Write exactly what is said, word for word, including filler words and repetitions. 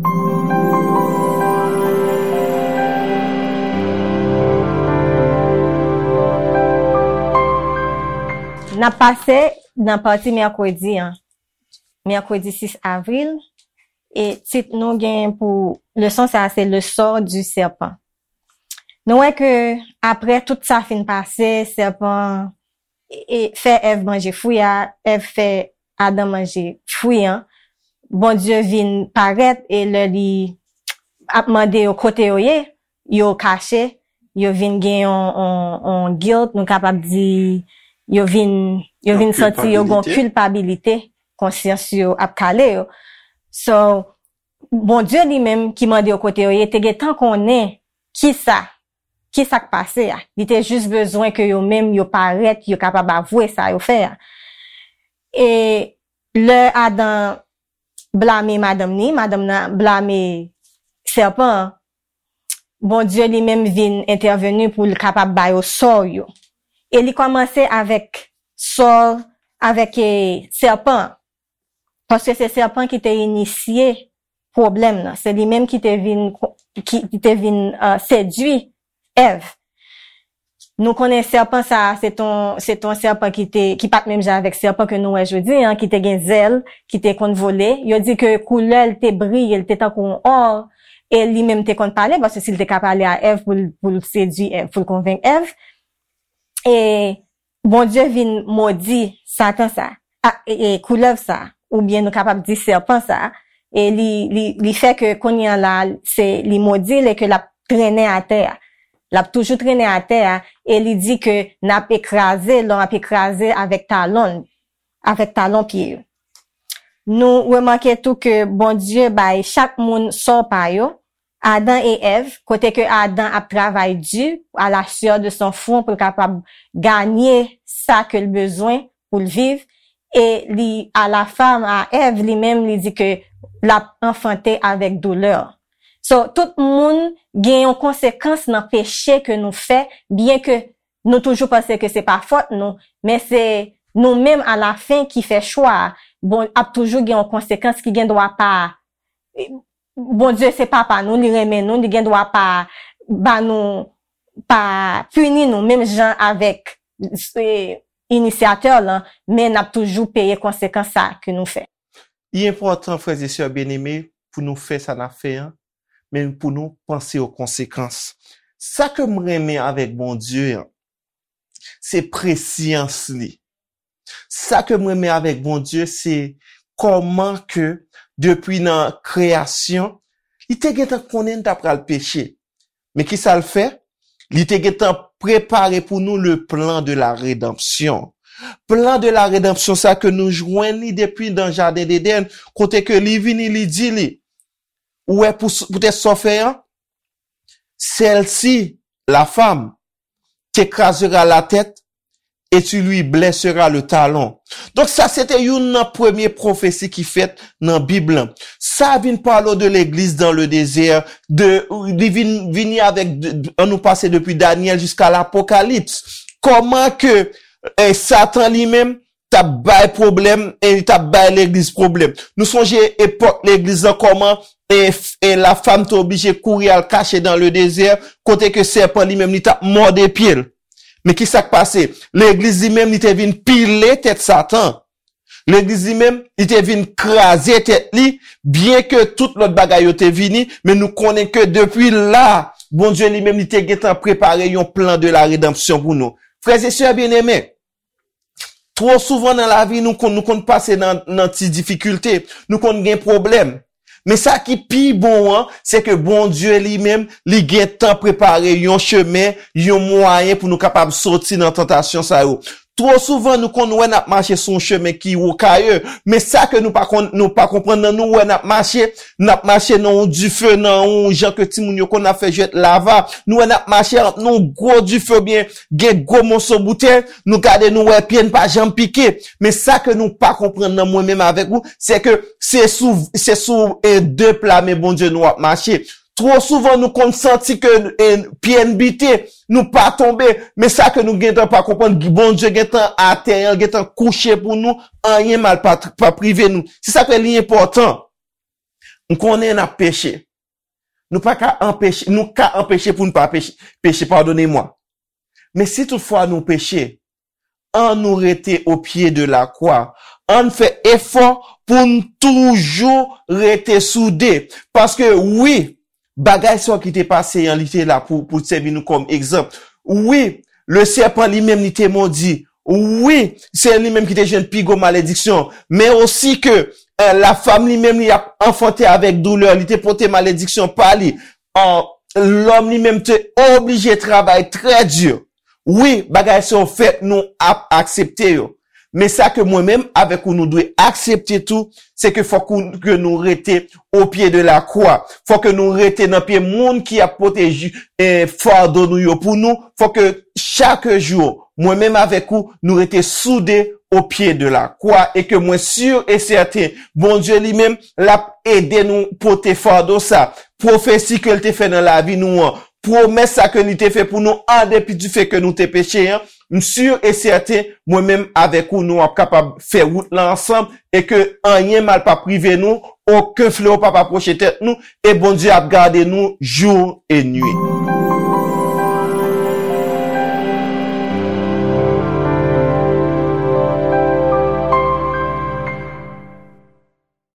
N ap pase nan pati mèkredi an, mèkredi sis avril, e tit nou gen pou leson sa a se Le sort du serpent. Nou wè ke apre tout sa fin pase, sèpan e, e fè Èv manje fwi a, Èv fè Adan manje fwi an, Bondye vin parèt e lè li ap mande yo kote yo ye, yo kache, yo vin gen yon, yon, yon guilt, nou kapab di, yo vin, yo vin santi yo gen yon kilpabilite, konsyans yo ap kale yo. So, Bondye li menm ki mande yo kote yo ye, te gentan konnen kisa, kisa k pase a. Li te jis bezwen ke yo menm yo parèt, yo kapab avwe sa yo fè a. E lè Adan blame madanm ni, madanm nan blame sèpan an, Bondye li menm vin entèveni pou l kapab ba yo sò yo. E li kòmanse avèk sò, avèk, e, sèpan an. Paske se sèpan ki te inisye pwoblèm nan. Se li menm ki te vin, ki, ki te vin, e, sedui Èv. Nou konnen sèpan sa a, se t on, se t on sèpan ki te, ki pa t menm jan avèk sèpan ke nou wè jodi an, ki te gen zèl, ki te konn vole. Yo di ke koulè l te briye, l te tankou yon or, e li menm te konn pale, paske si l te ka pale a Èv pou l, pou l sedui Èv, pou l konvenk Èv. E Bondye vin modi Satan sa, a, e, e, koulèv sa, oubyen nou kapab di sèpan sa, e li, li, li fè ke kounye a la, se, li modi l e ke l ap trennen atè a. L ap toujou trennen atè a, e li di ke n ap ekraze, l ap ekraze avèk talon, avèk talon pye yo. Nou remake tou ke Bondye bay chak moun sò pa yo, Adan e Èv, kote ke Adan ap travay di, à la sueur de son front, pou l kapab ganye sa ke l bezwen pou l viv, e li, à la femme, à Èv, li menm, li di ke l ap anfante avèk doulè. So, tout moun gen yon konsekans nan peche ke nou fè, byen ke nou toujou panse ke se pa fòt nou, men se nou menm alafen ki fè chwa a. Bon, ap toujou gen yon konsekans ki gen dwa pa, Bondye se papa nou, li renmen nou, li gen dwa pa ba nou, pa pini nou, menm jan avèk, e, inisyatè lan, men n ap toujou peye konsekans sa ke nou fè. Li enpòtan, frè e sè byeneme, pou nou fè sa n ap fè an, men pou nou panse o konsekans. Sa ke m renmen avèk Bondye an, se presyans li. Sa ke m renmen avèk Bondye, se kòman ke depi nan kreyasyon, li te gentan konnen n ta pral peche. Men kisa l fè? Li te gentan prepare pou nou le plan de la rédemption. Plan de la rédemption sa ke nou jwenn li depi nan jaden Edenn, kote ke li vini, li di li, ou wè pou, poutèt sa w fè an, celle-ci, la femme, t'écrasera la tête et tu lui blesseras le talon. Donk sa se te youn nan premye pwofesi ki fèt nan Bib lan. Sa vin pale de legliz dans le désert, de, li vin, vini avèk, de, de, an nou pase depi Danyèl jiska Lapokalips. Kòman ke, eh, Satan li menm t ap bay pwoblèm e li t ap bay legliz pwoblèm. Nou sonje epòk legliz lan kòman e, e la femme te oblije kouri al kache dans le désert, kote ke sèpan li menm li t ap mòde pye l. Men ki sa k pase? Legliz li menm li te vin pile tèt Satan. Legliz li menm li te vin kraze tèt li, byen ke tout lòt bagay yo te vini, men nou konnen ke depi la, Bondye li menm li te gentan prepare yon plan de la rédemption pou nou. Frè e sè byeneme, Twò souvan nan lavi, nou konn, nou konn pase nan, nan ti difikilte, nou konn gen pwoblèm. Men sa ki pi bon an, se ke Bondye li menm, li gentan prepare yon chemen, yon mwayen pou nou kapab soti nan tantasyon sa yo. Twò souvan, nou konn wè n ap mache sou yon chemen ki wokaye, men sa ke nou pa konn, nou pa konprann nan nou wè n ap mache, n ap mache nan yon dife, nan yon jan ke timoun yo konn ap fè jwèt lava. Nou wè n ap mache ant yon gwo dife oubyen gen gwo moso boutèy, nou gade nou wè pye n pa janm pike. Men sa ke nou pa konprann nan mwen menm avèk ou, se ke se sou, se sou, e, de pla men Bondye nou ap mache. Twò souvan nou konn santi ke, e, pye n bite, nou pa tonbe. Men sa ke nou gentan pa konprann, Bondye gentan atè an, gentan kouche pou nou, anyen mal pa, pa rive nou. Se sa ke li enpòtan. M konnen n ap peche. Nou pa ka anpeche, nou ka anpeche pou n pa peche, peche, padone mwa. Men si toutfwa nou peche, an nou rete o pye de la kwa. An fè efò pou n toujou rete soude. Paske wi, bagay sa ki te pase an, li te la pou, pou sèvi nou kòm egzanp. Wi, le sèpan li menm li te mondi. Wi, se li menm ki te jwenn pi gwo malediksyon. Men osi ke eh, la femme li menm li ap anfante avèk doulè, li te pote malediksyon pa li. An, lòm li menm te oblije travay trè di. Wi, bagay sa yo fèt, nou ap aksepte yo. Men sa ke mwen menm avèk ou nou dwe aksepte tou, se ke fòk ou, ke nou rete o pye de la kwa. Fòk ke nou rete nan pye moun ki ap pote ju- eh, fado nou yo pou nou. Fòk ke chak jou, mwen menm avèk ou, nou rete soude o pye de la kwa e ke mwen si e sèten, Bondye li menm, l ap ede nou pote fado sa. Pwofesi ke l te fè nan lavi nou an, pwomès sa ke li te fè pou nou an depi di fè ke nou te peche an, m si e sèten, mwen menm avèk ou, nou ap kapab fè wout la ansanm e ke anyen mal p ap rive nou, okenn flewo p ap apwoche tèt nou e Bondye ap gade nou jou e nuit.